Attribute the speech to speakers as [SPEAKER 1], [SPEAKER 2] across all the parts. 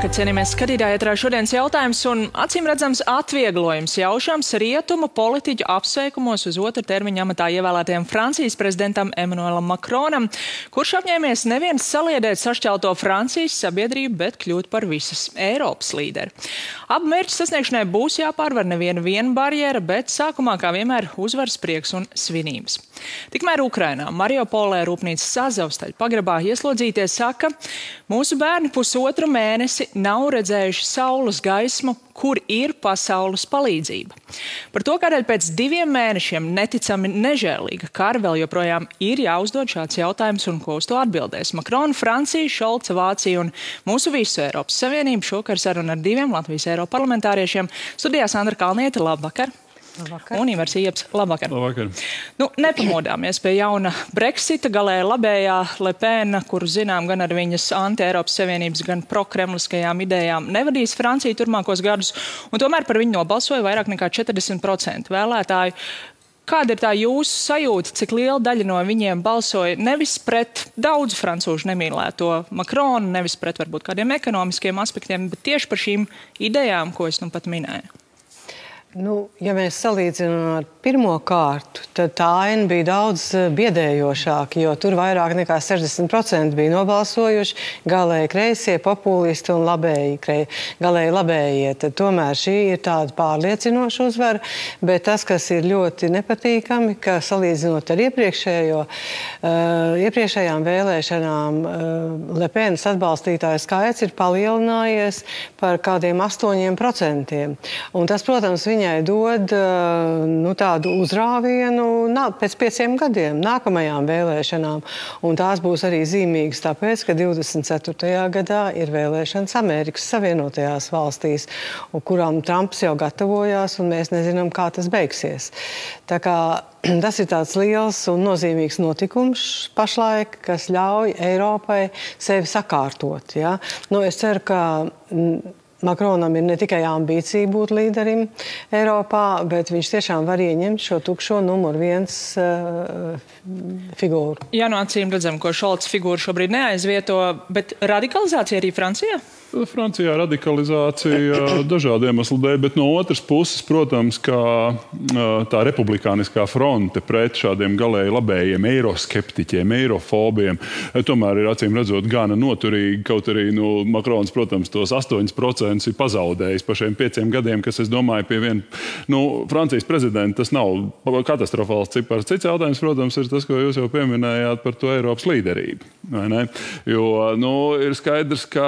[SPEAKER 1] Labvakar, cienījamies skatītāji, ētrā šodienas jautājums un acīm redzams atvieglojums jaušams rietumu politiķu apsveikumos uz otru termiņu amatā ievēlētajam Francijas prezidentam Emmanuelam Macronam, kurš apņēmies neviens saliedēt sašķelto Francijas sabiedrību, bet kļūt par visas Eiropas līderi. Abu mērķu sasniegšanai būs jāpārvar neviena barjera, bet sākumā, kā vienmēr, uzvaras prieks un svinības. Tikmēr Ukrainā, Mariupolē rūpnīcas Azovstaļa pagrabā ieslodzītie saka, mūsu bērni pusotru mēnesi nav redzējuši saules gaismu, kur ir pasaules palīdzība. Par to, kādēļ pēc 2 mēnešiem neticami nežēlīga kara vēl joprojām ir jāuzdod šāds jautājums un ko uz to atbildēs. Macrona, Francija, Šolca, Vācija un mūsu visu Eiropas Savienību šokar saruna ar 2 Latvijas Eiroparlamentāriešiem. Studijā Sandra Kalniete, labvakar.
[SPEAKER 2] Labvakar.
[SPEAKER 1] Un Ivars Ieps, labvakar.
[SPEAKER 3] Labvakar.
[SPEAKER 1] Nepamodāmies pie jauna Brexita, galēji labējā Le Pen, kuru zinām gan ar viņas anti-Eiropas Savienības, gan prokremliskajām idejām, nevadīs Franciju turmākos gadus, un tomēr par viņu nobalsoja vairāk nekā 40% vēlētāju. Kāda ir tā jūsu sajūta, cik liela daļa no viņiem balsoja nevis pret daudzu francūžu nemīlēto Macronu, nevis pret varbūt kādiem ekonomiskiem aspektiem, bet tieši par šīm idejām, ko es nu pat minēju?
[SPEAKER 2] Ja mēs salīdzinām ar pirmo kārtu, tad tā aina bija daudz biedējošāka, jo tur vairāk nekā 60% bija nobalsojuši galēji kreisie, populisti un galēji labējie. Tad tomēr šī ir tāda pārliecinoša uzvara, bet tas, kas ir ļoti nepatīkami, ka salīdzinot ar iepriekšējām vēlēšanām, Le Penas atbalstītāju skaits ir palielinājies par kādiem 8%. Un tas, protams, viņai dod tādu uzrāvienu pēc 5 gadiem, nākamajām vēlēšanām. Un tās būs arī zīmīgas tāpēc, ka 24. gadā ir vēlēšanas Amerikas Savienotajās valstīs, kurām Trumps jau gatavojās, un mēs nezinām, kā tas beigsies. Tā kā tas ir tāds liels un nozīmīgs notikums pašlaik, kas ļauj Eiropai sevi sakārtot. Ja? Es ceru, ka Macronam ir ne tikai ambīcija būt līderim Eiropā, bet viņš tiešām var ieņemt šo tukšo numur 1 figūru.
[SPEAKER 1] Jā, acīm redzam, ko Šolca figūra šobrīd neaizvieto, bet radikalizācija arī Francijā?
[SPEAKER 3] Francijā radikalizācija dažādu iemeslu dēļ, bet no otras puses, protams, kā tā republikāniskā fronte pret šādiem galēji labējiem eiroskeptiķiem, eirofobiem, tomēr ir acīm redzot gana noturīgi, kaut arī Macrons, protams, tos 8% ir pazaudējis pa šiem 5 gadiem, kas, es domāju, pie Francijas prezidenta tas nav katastrofāls cipars. Cits jautājums, protams, ir tas, ko jūs jau pieminējāt par to Eiropas līderību. Vai ne? Jo, ir skaidrs, ka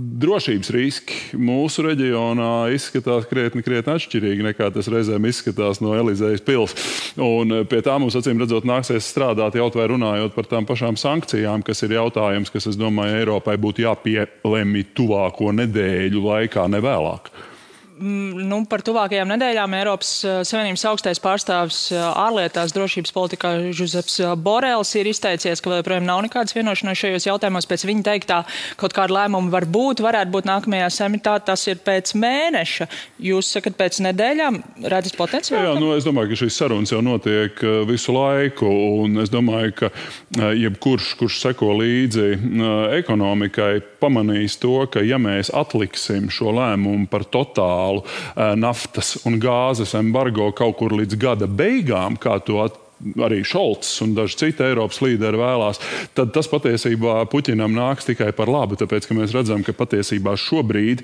[SPEAKER 3] drošības riski mūsu reģionā izskatās krietni atšķirīgi nekā tas reizēm izskatās no Elizejas pils. Un pie tā mums, acīm redzot, nāksies strādāt jau vai runājot par tām pašām sankcijām, kas ir jautājums, kas, es domāju, Eiropai būtu jāpielemj tuvāko nedēļu laikā, ne vēlāk.
[SPEAKER 1] Par tuvākajām nedēļām Eiropas Savienības augstais pārstāvis ārlietās drošības politikā Žuzeps Borels ir izteicies, ka vēl joprojām nav nekādas vienošanās šajos jautājumos. Pēc viņa teiktā kaut kāda lēmuma varētu būt nākamajā samitā, tas ir pēc mēneša. Jūs sakat pēc nedēļām, redzat potenciāli?
[SPEAKER 3] Jā, es domāju, ka šīs sarunas jau notiek visu laiku, un es domāju, ka jebkurš, kurš seko līdzi ekonomikai, pamanīs to, ka ja mēs atliksim šo lēmumu par totālu naftas un gāzes embargo kaut kur līdz gada beigām, kā to arī Šolts un daži citi Eiropas līderi vēlās, tad tas patiesībā Puķinam nāks tikai par labu, tāpēc, ka mēs redzam, ka patiesībā šobrīd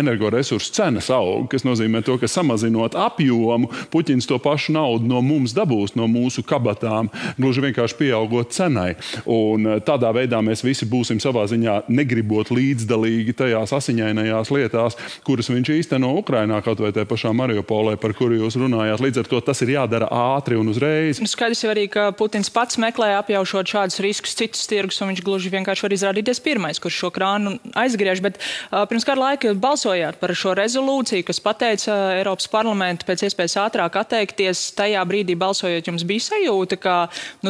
[SPEAKER 3] energoresursu cenas aug, kas nozīmē to, ka samazinot apjomu, Puķins to pašu naudu no mums dabūs, no mūsu kabatām, gluži vienkārši pieaugot cenai. Un tādā veidā mēs visi būsim savā ziņā negribot līdzdalīgi tajās asiņainajās lietās, kuras viņš īsteno Ukrainā, kaut vai tajā pašā Mariupolē, par kuru jūs runājāt. Līdz ar to tas ir jādara ātri un uzreiz.
[SPEAKER 1] Skaidrs jau arī, ka Putins pats meklē apjaušot šādus riskus citus tirgus, un viņš gluži vienkārši var izrādīties pirmais, kurš šo krānu aizgriež. Bet pirms kāda laika balsojāt par šo rezolūciju, kas pateica Eiropas parlamentu pēc iespējas ātrāk atteikties. Tajā brīdī balsojot, jums bija sajūta, ka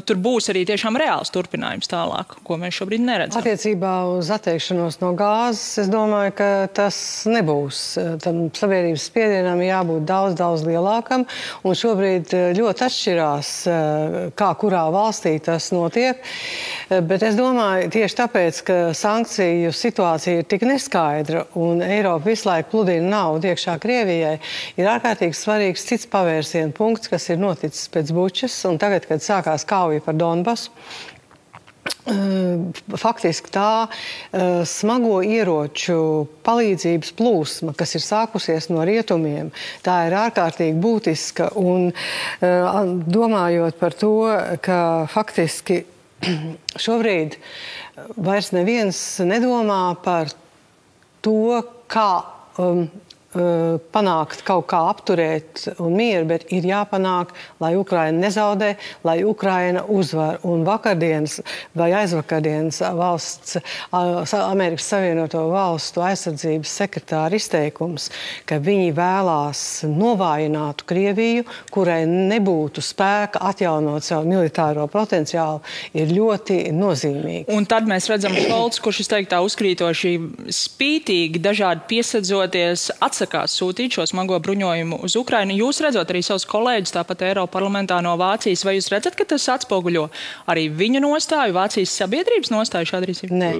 [SPEAKER 1] tur būs arī tiešām reāls turpinājums tālāk, ko mēs šobrīd neredzam.
[SPEAKER 2] Attiecībā uz atteikšanos no gāzes, es domāju, ka tas nebūs. Tam sabiedrības spiedienam jābūt daudz lielākam, un šobrīd ļoti atšķirīgi atšķirās, kā kurā valstī tas notiek, bet es domāju, tieši tāpēc, ka sankciju situācija ir tik neskaidra un Eiropa visu laiku pludina naudu iekšā Krievijai, ir ārkārtīgi svarīgs cits pavērsienu punkts, kas ir noticis pēc Bučas, un tagad, kad sākās kauja par Donbasu, faktiski tā smago ieroču palīdzības plūsma, kas ir sākusies no rietumiem, tā ir ārkārtīgi būtiska. Un domājot par to, ka faktiski šobrīd vairs neviens nedomā par to, kā panākt kaut kā apturēt un mieru, bet ir jāpanāk, lai Ukraina nezaudē, lai Ukraina uzvar. Un vakardienas vai aizvakardienas Amerikas Savienoto Valstu aizsardzības sekretāra izteikums, ka viņi vēlās novājināt Krieviju, kurai nebūtu spēka atjaunot savu militāro potenciālu, ir ļoti nozīmīgi.
[SPEAKER 1] Un tad mēs redzam Šolts, kurš izteiktā uzkrītoši spītīgi, dažādi piesadzoties, atsakās sūtīt šo smago bruņojumu uz Ukrainu. Jūs redzot arī savus kolēģus, tāpat Eiropa parlamentā no Vācijas, vai jūs redzat, ka tas atspoguļo arī viņu nostāju, Vācijas sabiedrības nostāju šāda rīcība?
[SPEAKER 2] Nē.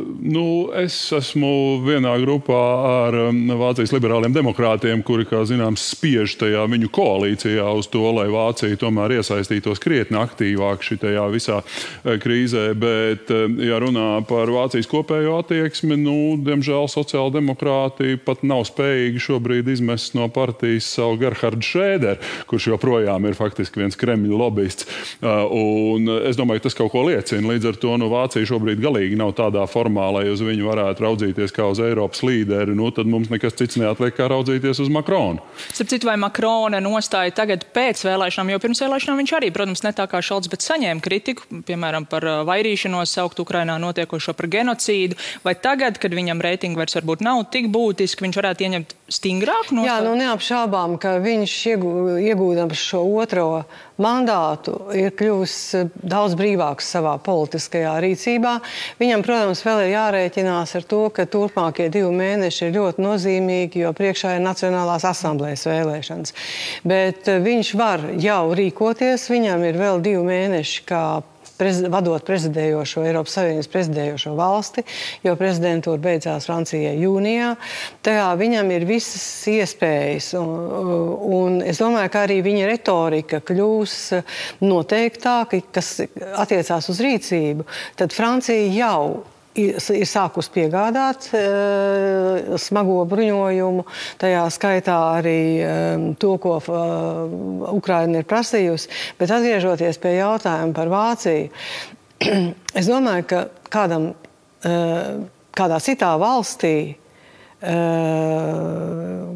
[SPEAKER 3] Es esmu vienā grupā ar Vācijas liberāliem demokrātiem, kuri, kā zināms, spiež tajā viņu koalīcijā uz to, lai Vācija tomēr iesaistītos krietni aktīvāk šitajā visā krīzē. Bet, ja runā par Vācijas kopējo attieksmi, diemžēl sociāldemokrāti pat nav spējīgi šobrīd izmest no partijas savu Gerhardu Šrēderu, kurš joprojām ir faktiski viens Kremļa lobbyists. Un es domāju, ka tas kaut ko liecina. Līdz ar to Vācija šobrīd galīgi nav tādā formā, lai uz viņu varētu raudzīties kā uz Eiropas līderi. Tad mums nekas cits neatliek, kā raudzīties uz Makronu.
[SPEAKER 1] Starp citu, vai Makrona nostāja tagad pēc vēlēšanām, jo pirms vēlēšanām viņš arī, protams, ne tā kā Šolts, bet saņēma kritiku, piemēram, par vairīšanos, saukt Ukrainā notiekošo par genocīdu, vai tagad, kad viņam reitingi vairs varbūt nav tik būtiski, viņš varētu ieņemt stingrāku nostāju?
[SPEAKER 2] Jā, neapšaubām, ka viņš iegūdams šo otro mandātu ir kļuvis daudz brīvāks savā politiskajā rīcībā. Viņam, protams, vēl ir jārēķinās ar to, ka turpmākie 2 mēneši ir ļoti nozīmīgi, jo priekšā ir Nacionālās asamblējas vēlēšanas. Bet viņš var jau rīkoties, viņam ir vēl 2 mēneši kā vadot prezidējošo, Eiropas Savienības prezidējošo valsti, jo prezidentūra beidzās Francijai jūnijā. Tajā viņam ir visas iespējas, un es domāju, ka arī viņa retorika kļūs noteiktāka, kas attiecās uz rīcību. Tad Francija jau ir sākus piegādāt smago bruņojumu, tajā skaitā arī to, ko Ukraina ir prasījusi. Bet atgriežoties pie jautājuma par Vāciju, es domāju, ka kādā citā valstī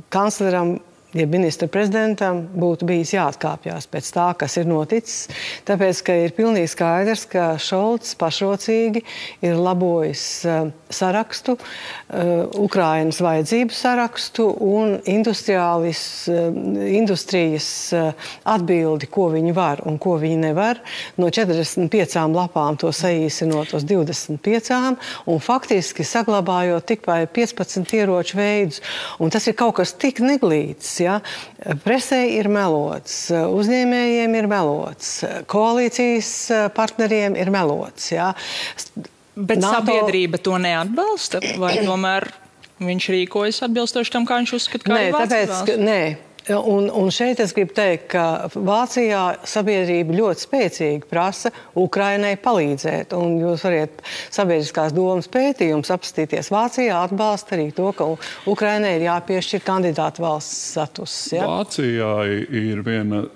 [SPEAKER 2] kancleram, ja ministra prezidentam būtu bijis jāatkāpjās pēc tā, kas ir noticis, tāpēc, ka ir pilnīgi skaidrs, ka Šolts pašrocīgi ir labojis sarakstu, Ukrainas vajadzību sarakstu un industrijas atbildi, ko viņi var un ko viņi nevar. No 45 lapām to saīsinot uz 25 un faktiski saglabājot tikai 15 ieroču veidus. Un tas ir kaut kas tik neglīts. Ja? Presē ir melots, uzņēmējiem ir melots, koalīcijas partneriem ir melots. Ja?
[SPEAKER 1] Bet sabiedrība to neatbalsta? Vai tomēr viņš rīkojas atbilstoši tam, kā viņš uzskata, kā ir Vācijas valsts?
[SPEAKER 2] Nē. Un šeit es gribu teikt, ka Vācijā sabiedrība ļoti spēcīgi prasa Ukrainai palīdzēt. Un jūs variet sabiedriskās domas pētījums apstīties. Vācijā atbalsta arī to, ka Ukrainai ir jāpiešķir kandidātu valsts status. Ja?
[SPEAKER 3] Vācijā ir viena,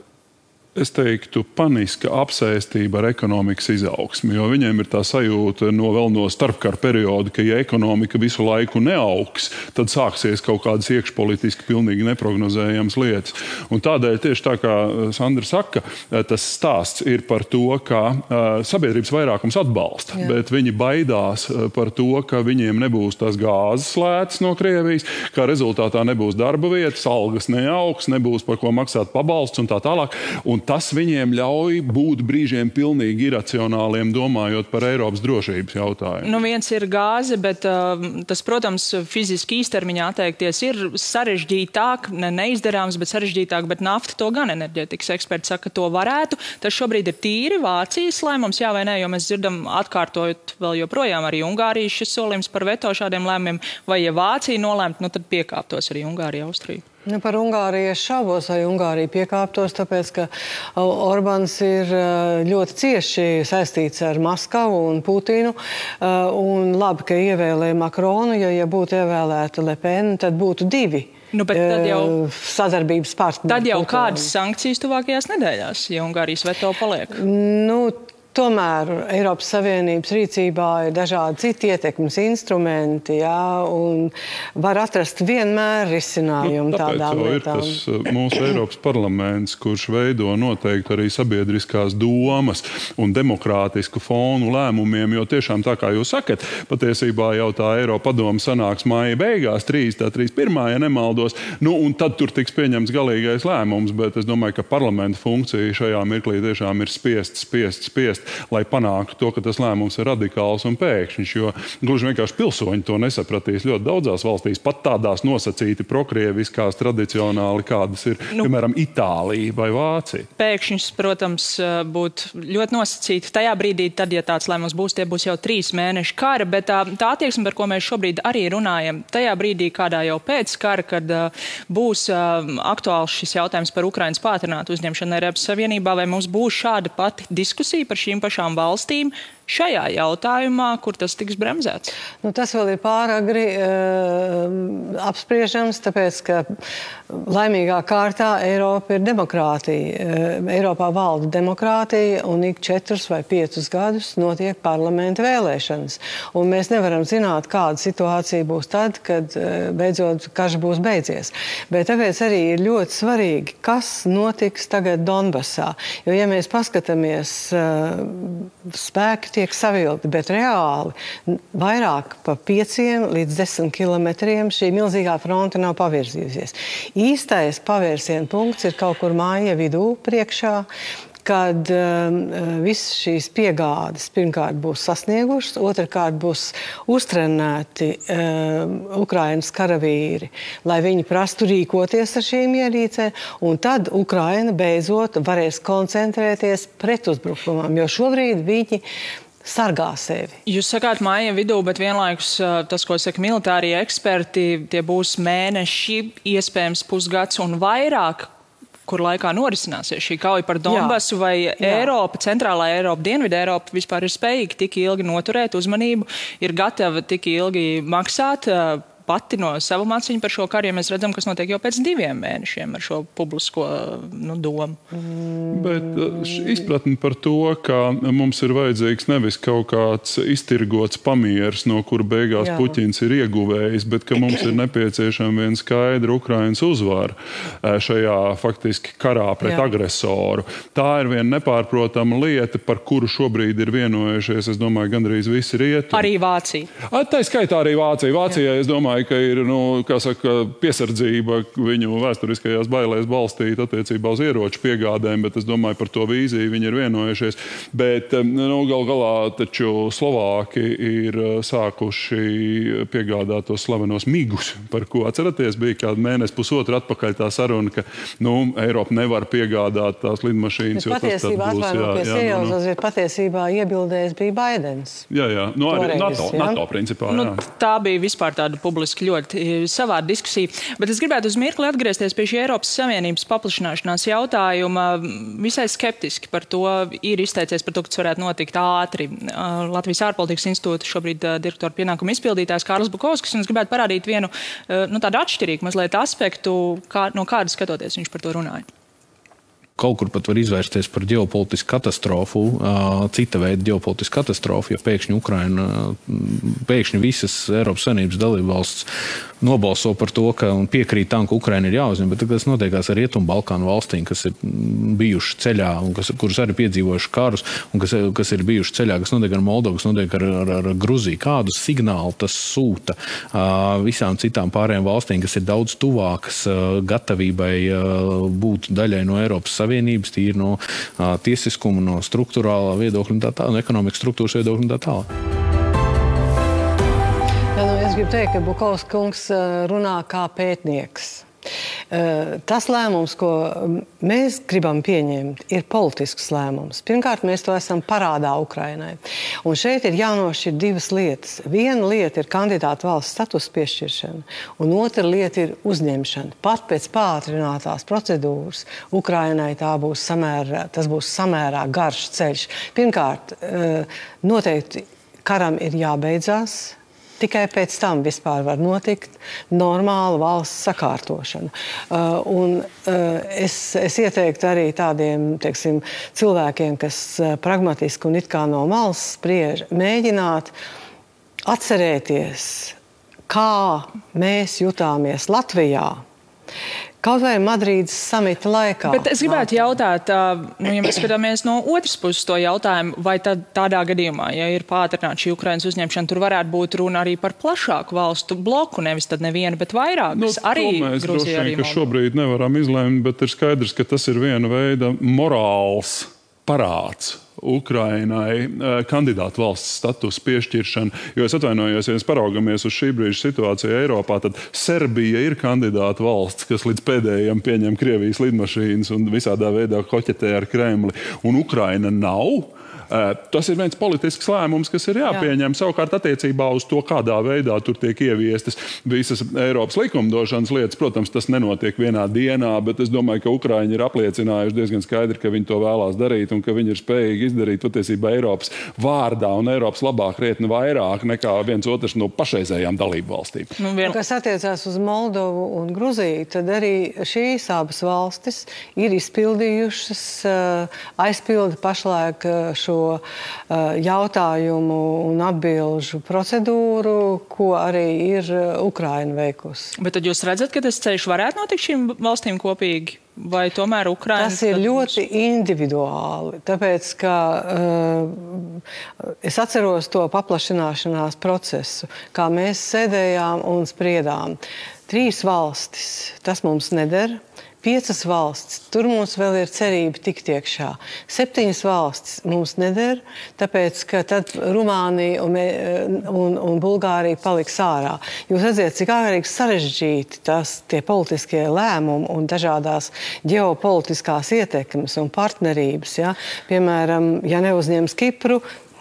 [SPEAKER 3] es teiktu, paniska apsēstība ar ekonomikas izaugsmi, jo viņiem ir tā sajūta vēl no starpkara perioda, ka ja ekonomika visu laiku neaugs, tad sāksies kaut kādas iekšpolitiski pilnīgi neprognozējamas lietas. Un tādēļ tieši tā kā Sandra saka, tas stāsts ir par to, ka sabiedrības vairākums atbalsta, bet viņi baidās par to, ka viņiem nebūs tās gāzes lētas no Krievijas, ka rezultātā nebūs darba vietas, algas neaugs, nebūs par ko maksāt pabalsts un tā tālāk. Un un tas viņiem ļauj būt brīžiem pilnīgi iracionāliem, domājot par Eiropas drošības jautājumu.
[SPEAKER 1] Nu, viens ir gāze, bet tas, protams, fiziski īstermiņā atteikties ir sarežģītāk, neizdarāms, bet sarežģītāk, bet nafta to gan enerģētikas eksperti saka, ka to varētu. Tas šobrīd ir tīri Vācijas lēmums, jā vai nē, jo mēs dzirdam atkārtojot vēl joprojām arī Ungārijas šis solījums par veto šādiem lēmumiem, vai ja Vācija nolēmt, nu tad piekāptos arī Ungārija, Austrija.
[SPEAKER 2] Nu, par Ungāriju es šaubos, vai Ungārija piekāptos, tāpēc, ka Orbāns ir ļoti cieši saistīts ar Maskavu un Putinu. Un labi, ka ievēlēja Makronu, ja būtu ievēlēta Le Pen, tad būtu divi.
[SPEAKER 1] Nu, bet tad jau
[SPEAKER 2] sadarbības partneri.
[SPEAKER 1] Tad jau kādas sankcijas tuvākajās nedēļās, ja Ungārijas veto paliek?
[SPEAKER 2] Nu, tomēr Eiropas Savienības rīcībā ir dažādi citi ietekmes instrumenti, jā, un var atrast vienmēr risinājumu tādām lietām.
[SPEAKER 3] Tāpēc jau ir tas mūsu Eiropas parlaments, kurš veido noteikti arī sabiedriskās domas un demokrātisku fonu lēmumiem, jo tiešām tā kā jūs sakat, patiesībā jau tā Eiropa padoma sanāks māja beigās, 31. ja nemaldos, nu un tad tur tiks pieņemts galīgais lēmums, bet es domāju, ka parlamenta funkcija šajā mirklī tiešām ir spiest, lai panāktu to, ka tas lēmums ir radikāls un pēkšņš, jo gluži vienkārši pilsoņi to nesapratīs ļoti daudzās valstīs, pat tādās nosacīti prokrieviskās tradicionāli, kādas ir, piemēram, Itālija vai Vācija.
[SPEAKER 1] Pēkšņs, protams, būtu ļoti nosacīti tajā brīdī, tad, ja tāds lēmums būs, tie būs jau 3 mēneši kara, bet tā attieksme, par ko mēs šobrīd arī runājam, tajā brīdī, kādā jau pēc kara, kad būs aktuāls šis jautājums par Ukrainas pātrinātu uzņemšanu Eiropas Savienībā, vai mums būs šāda pati diskusija par šīm pašām valstīm šajā jautājumā, kur tas tiks bremzēts?
[SPEAKER 2] Nu, tas vēl ir pāragri apspriežams, tāpēc, ka laimīgā kārtā Eiropa ir demokrātija. Eiropā valda demokrātija un ik 4 vai 5 gadus notiek parlamenta vēlēšanas. Un mēs nevaram zināt, kāda situācija būs tad, kad beidzot karš būs beidzies. Bet tāpēc arī ir ļoti svarīgi, kas notiks tagad Donbasā. Jo, ja mēs paskatāmies, spēki tiek savilti, bet reāli vairāk pa 5 līdz 10 kilometriem šī milzīgā fronte nav pavirzījusies. Īstais pavērsiena punkts ir kaut kur māja vidū priekšā, kad visas šīs piegādes pirmkārt būs sasniegušas, otrkārt būs uztrenēti Ukrainas karavīri, lai viņi prastu rīkoties ar šīm ierīcēm, un tad Ukraina beidzot varēs koncentrēties pretuzbrukumam, jo šobrīd viņi sargā sevi.
[SPEAKER 1] Jūs sakāt māja vidū, bet vienlaikus tas, ko saka militārie eksperti, tie būs mēneši, iespējams pusgads un vairāk, kur laikā norisināsies šī kauja par Donbasu, vai Eiropa, centrālā Eiropa, Dienvidu Eiropa vispār ir spējīga tik ilgi noturēt uzmanību, ir gatava tik ilgi maksāt pati no savu māciņu par šo karu, ja mēs redzam, kas notiek jau pēc 2 mēnešiem ar šo publisko domu.
[SPEAKER 3] Bet izpratni par to, ka mums ir vajadzīgs nevis kaut kāds iztirgots pamieris, no kura beigās Puķins ir ieguvējis, bet ka mums ir nepieciešama viena skaidra Ukrainas uzvara šajā faktiski karā pret agresoru. Tā ir viena nepārprotama lieta, par kuru šobrīd ir vienojušies, es domāju, gandrīz visi rietumi.
[SPEAKER 1] Arī Vācija.
[SPEAKER 3] Tā skaitā arī Vācija. Vācijai, es domāju, ka ir, kā saka, piesardzība viņu vēsturiskajās bailēs balstīt attiecībā uz ieroču piegādēm, bet es domāju, par to vīziju viņi ir vienojušies. Bet gal galā taču Slovāki ir sākuši piegādāt tos slavenos migus, par ko atceraties, bija kādu mēnesi pusotru atpakaļ tā saruna, ka Eiropa nevar piegādāt tās lidmašīnas, jo tas tad būs.
[SPEAKER 2] Patiesībā iebildējis bija Baidens.
[SPEAKER 3] Jā. Nu, arī NATO principā,
[SPEAKER 1] tā bija vispār tāda publiska ļoti savāda diskusija. Bet es gribētu uz mirkli atgriezties pie šī Eiropas Savienības paplašināšanās jautājuma. Visai skeptiski par to ir izteicies par to, ka tas varētu notikt ātri. Latvijas ārpolitikas institūta šobrīd direktora pienākuma izpildītājs Kārlis Bukovskis, un es gribētu parādīt vienu tādu atšķirīgu mazliet aspektu, no kāda skatoties viņš par to runāja.
[SPEAKER 4] Kaut kur pat var izvērsties par ģeopolitisku katastrofu, cita veida ģeopolitisku katastrofu, jo pēkšņi visas Eiropas Savienības dalībvalsts nobalso par to, ka un piekrīt tam, ka Ukraina ir jāuzņem, bet tas notiekās ar Rietumbalkānu valstīm, kas ir bijuši ceļā un kuras arī piedzīvojuši karus un kas ir bijuši ceļā, kas notiek ar Moldovu, kas notiek ar Gruziju. Kādu signālu tas sūta visām citām pārējām valstīm, kas ir daudz tuvākas gatavībai būt daļai no Eiropas Savienības savienības, tīri no tiesiskuma, no struktūrālā viedokļa un tā tālāk, no ekonomikas struktūras viedokļa un tā tālāk.
[SPEAKER 2] Es gribu teikt, ka Bukovs kungs runā kā pētnieks. Tas lēmums, ko mēs gribam pieņemt, ir politisks lēmums. Pirmkārt, mēs to esam parādā Ukrainai. Un šeit ir jānošķir divas lietas. Viena lieta ir kandidāta valsts status piešķiršana, un otra lieta ir uzņemšana. Pat pēc pātrinātās procedūras Ukrainai tas būs samērā garš ceļš. Pirmkārt, noteikti karam ir jābeidzās. Tikai pēc tam vispār var notikt normāla valsts sakārtošana. Es ieteiktu arī tādiem, teiksim, cilvēkiem, kas pragmatiski un it kā no malas spriež, mēģināt atcerēties, kā mēs jutāmies Latvijā. Kaut vai Madrīdas samita laikā.
[SPEAKER 1] Bet es gribētu jautāt, ja mēs skatāmies no otras puses to jautājumu, vai tad tādā gadījumā, ja ir pātrināta šī Ukrainas uzņemšana, tur varētu būt runa arī par plašāku valstu bloku, nevis tad nevienu, bet vairākas. Arī
[SPEAKER 3] mēs
[SPEAKER 1] Gruzija, arī
[SPEAKER 3] Moldova. Ka šobrīd nevaram izlēmt, bet ir skaidrs, ka tas ir viena veida morāls parāds Ukrainai kandidātu valsts status piešķiršana. Jo es atvainojos, ja mēs paraugamies uz šī brīža situāciju Eiropā, tad Serbija ir kandidāta valsts, kas līdz pēdējiem pieņem Krievijas lidmašīnas un visādā veidā koķetē ar Kremli. Un Ukraina nav. Tas ir viens politisks lēmums, kas ir jāpieņem. Savukārt attiecībā uz to, kādā veidā tur tiek ieviestas visas Eiropas likumdošanas lietas. Protams, tas nenotiek vienā dienā, bet es domāju, ka Ukraiņi ir apliecinājuši diezgan skaidri, ka viņi to vēlās darīt un ka viņi ir spējīgi izdarīt patiesībā Eiropas vārdā un Eiropas labā krietni vairāk nekā viens otrs no pašreizējām dalību valstīm.
[SPEAKER 2] Kas attiecās uz Moldovu un Gruziju, tad arī šīs abas valstis ir izpildījušas, aizpilda pašlaik šo jautājumu un atbilžu procedūru, ko arī ir Ukraina veikusi.
[SPEAKER 1] Bet tad jūs redzat, ka tas ceļš varētu notikt šīm valstīm kopīgi? Vai tomēr Ukraina...
[SPEAKER 2] Tas ir ļoti individuāli, tāpēc, ka es atceros to paplašināšanās procesu, kā mēs sēdējām un spriedām. 3 valstis, tas mums neder. 5 valstis, tur mums vēl ir cerība tikt iekšā. 7 valstis mums neder, tāpēc, ka tad Rumānija un Bulgārija paliks ārā. Jūs redziet, cik ārīgi sarežģīti tie politiskie lēmumi un dažādās ģeopolitiskās ietekmes un partnerības. Ja? Piemēram, ja neuzņems Kipru,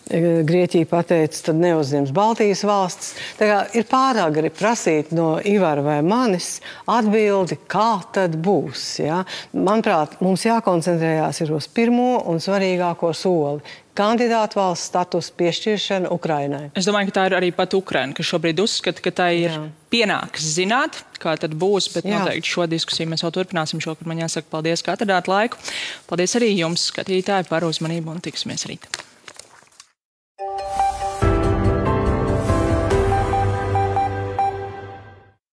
[SPEAKER 2] Grieķija pateica, tad neuzņems Baltijas valstis. Tā kā ir pārāk arī prasīt no Ivara vai manis atbildi, kā tad būs. Ja? Manuprāt, mums jākoncentrējās ir uz pirmo un svarīgāko soli. Kandidātu valsts status piešķiršana Ukrainai.
[SPEAKER 1] Es domāju, ka tā ir arī pat Ukraina, kas šobrīd uzskata, ka tā ir pienāks zināt, kā tad būs, bet noteikti šo diskusiju mēs vēl turpināsim šokar. Man jāsaka paldies, ka atradāt laiku. Paldies arī jums, skatītāji, par uzmanību un tiksimies rīt.